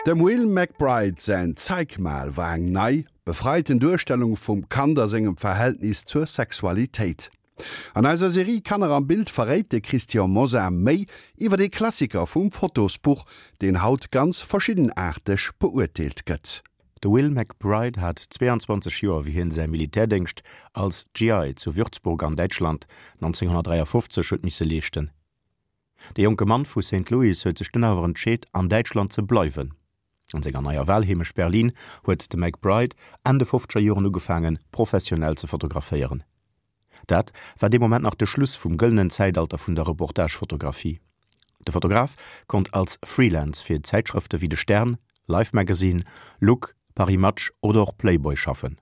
Dem Will McBride säin Zeig mal war eng nei, befreiten Duerstellung vum Kand a sengem Verhältnis zur Sexualitéit. An eiser Serie Kanner am Bild verréit de Christian Mosar méi iwwer ee Klassiker vum Fotosbuch, deen haut ganz verschiddenaarteg beurteelt gëtt. De Will McBride hat 22 Joer wéi hien säi Militärdéngscht als GI zu Würzburg an Däitschland 1953 huet misse leeschten. De jonke Mann vu Saint Louis huet sech dunn awer entscheet an Däitschland ze bleiwen. An senger neier Walheemecht Berlin huet de McBride Enn de fofzeger Joren ugefaangen professionell ze fotograféieren. Dat war dee Moment nach de Schluss vum gëllenen Zäitalter vun der Reportagefotografie. De Fotograf konnt als Freelance fir Zäitschrëfte wéi de Stern, Life Magazine, Look, Paris Match oder och Playboy schaffen.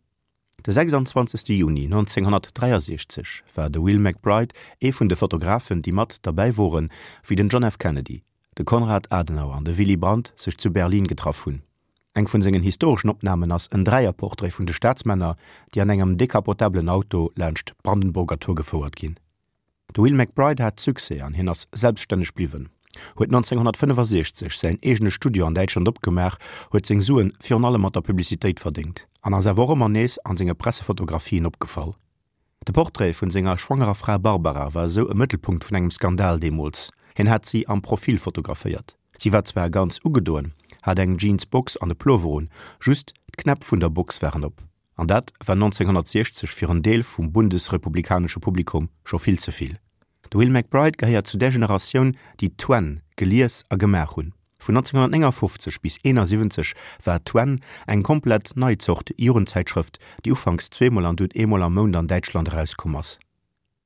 De 26 Juni 1963 war de Will McBride ee vun de Fotografen, déi mat derbäi woren, wéi den John F. Kennedy, de Konrad Adenauer an de Willy Brandt sech zu Berlin getraff hunn. Eng vun sengen historeschen Opnamen ass en Dräierportrait vun de Staatsmänner, déi an engem decapotablen Auto laanscht d'Brandenburger Tor gefouert ginn. De Will McBride hat Succès an hien ass selbststänneg bliwwen, huet 1965 säin eegene Studio an Däitschland opgemaach, huet seng Suen virun allem mat der Publicitéit verdéngt an ass awer och ëmmer nees an senge Pressefotografien opgefall. De Portrait vun senger schwangerer Fra Barbara war esou e Mëttelpunkt vun engem Skandal deemools. Hien hat si am Profil fotograféiert. Si war zwar ganz ugedoen, hat eng Jeans-Box an e Plover un, just d'Knäpp vun der Box waren op. An dat war 1960 fir en Deel vum bundesrepublikanesche Publikum scho vill ze vill. De Will McBride gehéiert zu där Generatioun, déi Twen gelies a gemaach hunn. Vun 1959 bis 71 war Twen eng komplett nei Zort Jugendzäitschrëft, déi ufanks zweemol an dunn eemol am Mount an Däitschland erauskomm ass.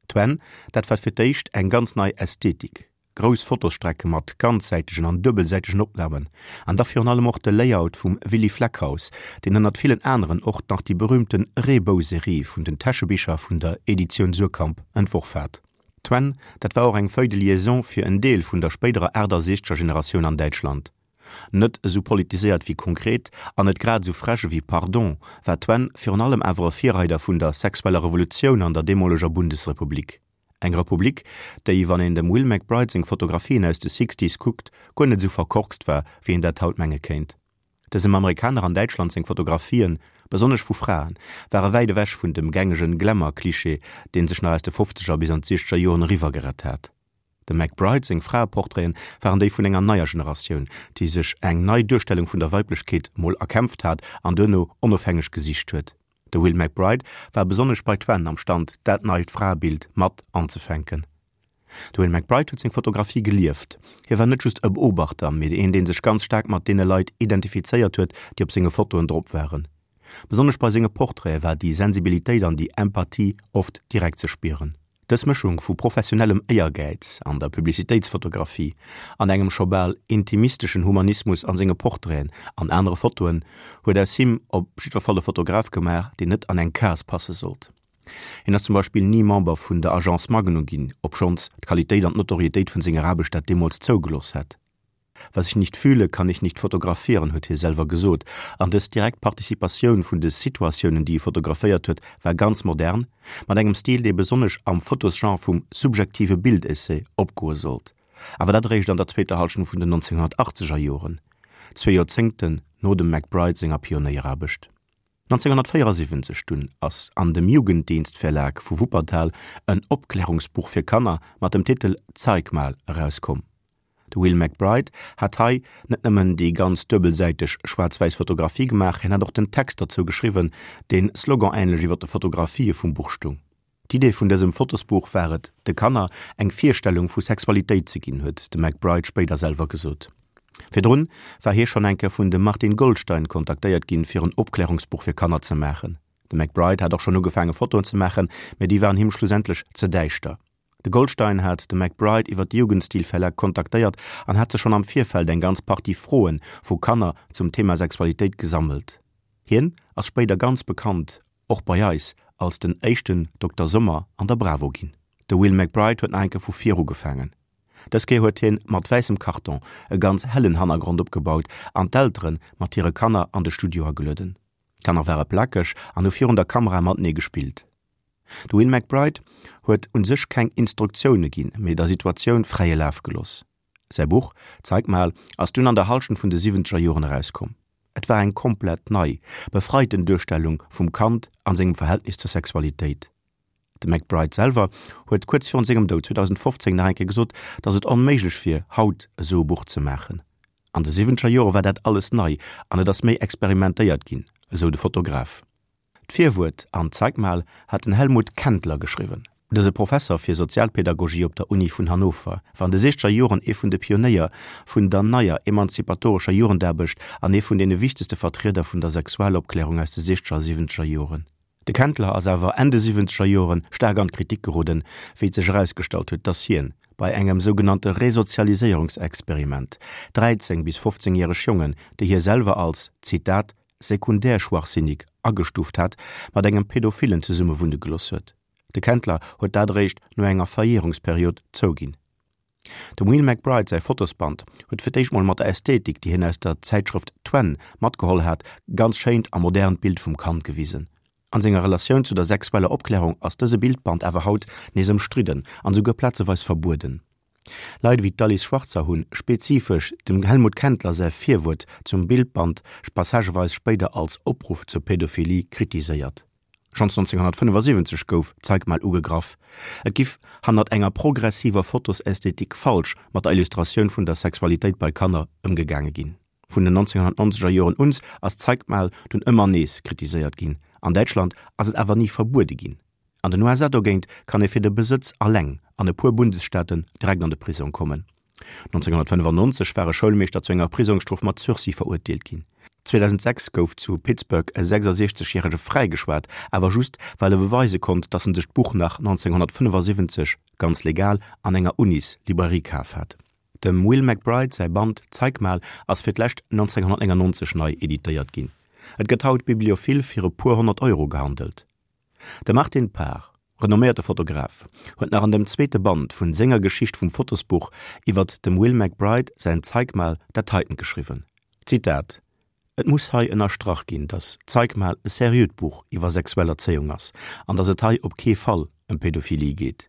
Twen, dat war fir d'éischt eng ganz nei Ästhetik, grouss Fotosstrecke mat ganzsäitegen an duebelsäitegen Opnamen an da virun allem och de Layout vum Willy Fleckhaus, deen ënnert villen aneren och nach déi berühmten Reebou-Serie vun den Täschebicher vun der Editioun Suhrkamp entworf hat. Twen, dat war och eng Feuille de liaison fir en Deel vun der spéiderer 68er Generatioun an Däitschland. Net esou politiséiert wéi Konkret an net grad esou frech ewéi Pardon, war Twen virun allem awer e Virreider vun der sexueller Revolutioun an der deemoleger Bundesrepublik. Eng Republik, déi, wann een dem Will McBride seng Fotografien aus de Sixties kuckt, guer net esou verkorkst war, wéi een dat haut menge kéint. Dësem Amerikaner an Däitschland seng Fotografien, besonnesch vu Fraen, ware wäit ewech vun dem gängegen Glamour-Klischee, deen sech nach aus de Fofzeger bis an d'Siechzeger Joren eriwwer gerett hat. Dem McBride seng Fraeportraiten waren déi vun enger neier Generatioun, déi sech eng nei Duerstellung vun der Weiblechkeet mol erkämpft hat an duerno onofhängeg gesicht huet. De Will McBride war besonnesch bei Twen am Stand, dat neit Fraebild mat anzefänken. De Will McBride huet seng Fotografie gelieft. Hie war net just e Beobachter, mee een, dee sech ganz staark mat deene Leit identifizéiert huet, déi op senge Fotoen drop waren. Besonnesch bei senge Portraite war déi Sensibilitéit an déi Empathie oft direkt ze spieren. Dës Mëschung vu professionellem Éiergäiz an der Publicitéitsfotografie an engem scho bal intimisteschen Humanismus an senge Portraiten an anere Fotoen huet aus him op jiddwer Fall e Fotograf gemaach, deen net an eng Case passe sollt. Hien ass zum Beispill ni Member vun der Agence Magnum ginn, obschonns d'Qualitéit an d'Notorietéit vun senger Aarbecht dat deemools zougelooss hätt. Was ich nicht fühle, kann ich nicht fotografieren, huet hie selwer gesot. An dës direkt Participatioun vun de Situatiounen, déi e fotograféiert huet, war ganz modern, mat engem Stil, dee besonnesch am Fotosgenre vum subjektive Bildessai opgoe sollt. Awer dat eréischt an der zweeter Hallschent vun den 1980er Joren, zwee Joerzéngten no dem McBride senger Pionéieraarbecht. 1974 dunn ass an dem Jugenddienstverlag vu Wuppertal en Opklärungsbuch fir Kanner mat dem Titel Zeig mal erauskomm. De Will McBride hat hei net nëmmen déi ganz duebelsäiteg schwaarz-wäiss Fotografie gemaach, hien hat och den Text derzou geschriwwen, deen sloganähnlech iwwer de Fotografië vum Buch stung. D'Idee vun dësem Fotosbuch war et, de Kanner eng Virstellung vu Sexualitéit ze ginn, huet de McBride spéider selwer gesot. Virdrun war hie schonn eng Kéier vun dem Martin Goldstein kontaktéiert ginn, fir en Opklärungsbuch fir Kanner ze maachen. De McBride hat och schonn ugefaange Fotoen ze maachen, mä déi waren him schlussendlech ze däischter. De Goldstein hat de McBride iwwer de Jugendstil-Verlag kontaktéiert an hat sech schonn am Virfeld eng ganz Partie Froe vu Kanner zum Thema Sexualitéit gesammelt. Hien ass spéider ganz bekannt, och bei eis, als den éischten Dokter Sommer an der Bravo ginn. De Will McBride huet nach eng Kéier vu vir ugefaangen. Dës Kéier huet hien mat wäissem Karton e ganz hellen Hannergrond opgebaut an d'Eltere mat hire Kanner an de Studio agelueden. D'Kanner ware plakeg an hu virun der Kamera matenee gespillt. De Will McBride huet un sech keng Instruktioune ginn, mee der Situatioun fräie Laf gelooss. Säi Buch Zeig mal ass dunn an der Hallschent vun de siwwenzeger Joren erauskomm. Et war eng komplett nei, befreiten Duerstellung vum Kand an sengem Verhältnis zur Sexualitéit. De McBride selwer huet kuerz virun sengem Doud 2015 nach eng Kéier gesot, datt et onméiglech wier, haut esou e Buch ze maachen. An de siwwenzeger Jore war dat alles nei an et ass méi experimentéiert ginn, esou de Fotograf. D'Virwuert an Zeig mal hat den Helmut Kendler geschriwwen. Dëse Professer fir Sozialpedagogie op der Uni vun Hannover war an de siechzeger Joren ee vun de Pionéier vun der neier emanzipatorescher Jugendaarbecht an ee vun deene wichtegste Vertrieder vun der Sexualopklärung aus de siechzeger a siwwenzeger Joren. De Kendler ass awer Enn de siwwenzeger Joren staark an d'Kritik geroden, wéi et sech erausgestallt huet, datt hien bei engem sougenannte Resozialiséierungsexperiment 13 bis 15 järeg Jongen, déi hie selwer als, Zitat, sekundärschwachsinnig agestuuft hat, mat engem Pädophillen zesummewunne gelooss huet. De Kendler huet dat eréischt no enger Verjärungsperiod zouginn. Dem Will McBride säi Fotosband huet fir d'éischt mol mat der Ästhetik, déi hien aus der Zäitschrëft Twen matgeholl hat, e ganz schéint a modernt Bild vum Kand gewisen. An senger Relatioun zu der sexueller Opklärung ass dëse Bildband awer haut nees ëmstridden an esouguer plazeweis verbueden. Leit ewéi d'Alice Schwarzer hunn spezifesch dem Helmut Kendler säi Virwuert zum Bildband passageweis spéider als Opruff zur Pädophilie kritiséiert. Schonns 1975 gouf Zeig mal ugegraff, et giff hannert enger progressiver Fotosästhetik falsch mat der Illustratioun vun der Sexualitéit bei Kanner ëmgegaange ginn. Vun den 1990er Joren uns ass Zeig mal dunn ëmmer nees kritiséiert ginn, an Däitschland ass et awer ni verbuede ginn. An den USA dogéint kann ee fir de Besëtz alleng an e puer Bundesstaaten direkt an de Prisong kommen. 1995 war e Schoulmeeschter zu enger Prisongsstrof mat Sursis verurteelt ginn. 2006 gouf zu Pittsburgh e 66 järege fräigeschwat, awer just well e beweise konnt, datt en sech d'Buch nach 1975 ganz legal an enger Unis-Librairie kaf hat. Dem Will McBride säi Band Zeig mal ass fir d'lescht 1999 nei editéiert ginn. Et gëtt haut bibliophil fir e puer 100 Euro gehandelt. De Martin Parr, renomméierte Fotograf, huet nach an dem zweete Band vun senger Geschicht vum Fotosbuch iwwert dem Will McBride säin Zeig mal dat heiten geschriwwen, Zitat, Et muss hei ënnerstrach ginn, datt Zeig mal e seriöt Buch iwwer sexuell Erzéiung ass an datt et hei op kee Fall ëm Pädophilie geet.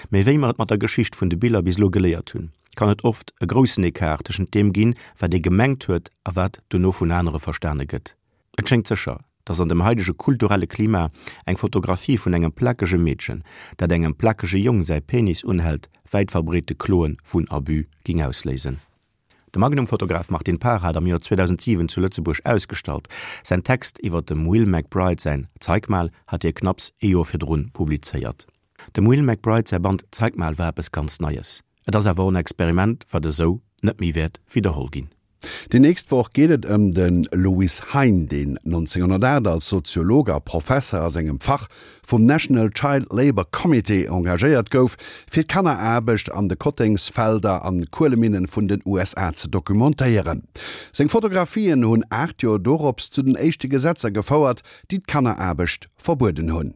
Mee wéi mer et mat der Geschicht vun de Biller bis elo geléiert hunn, kann et oft e groussen Ecart tëschent deem ginn, wat ee gemengt huet a wat dono vun anere verstane gëtt. Et schéngt sécher, dass an dem haidege kulturelle Klima eng Fotografie vun engem plakege Meedchen, dat engem plakege Jong säi Penis unhält, wäit verbreete Kloe vun Abus ging ausléisen. De Magnum-Fotograf Martin Parr hat am Joer 2007 zu Lëtzebuerg ausgestallt. Säin Text iwwer dem Will McBride säin Zeig mal hat hie knapps ee Joer virdrun publizéiert. Dem Will McBride säi Band Zeig mal war eppes ganz Neies. Et ass awer och en Experiment, wat esou net méi wäert widderholl ginn. Déi nächst Woch geet et ëm de Louis Hein, deen 1908 als Soziolog a Professer a sengem Fach vum National Child Labour Committee engagéiert gouf, fir d'Kanneraarbecht an de Kottengsfelder an Kueleminnen vun den USA ze documentéieren. Seng Fotografien hunn 8 Joer dorops zu den éischte Gesetzer gefouert, déi d'Kanneraarbecht verbueden hunn.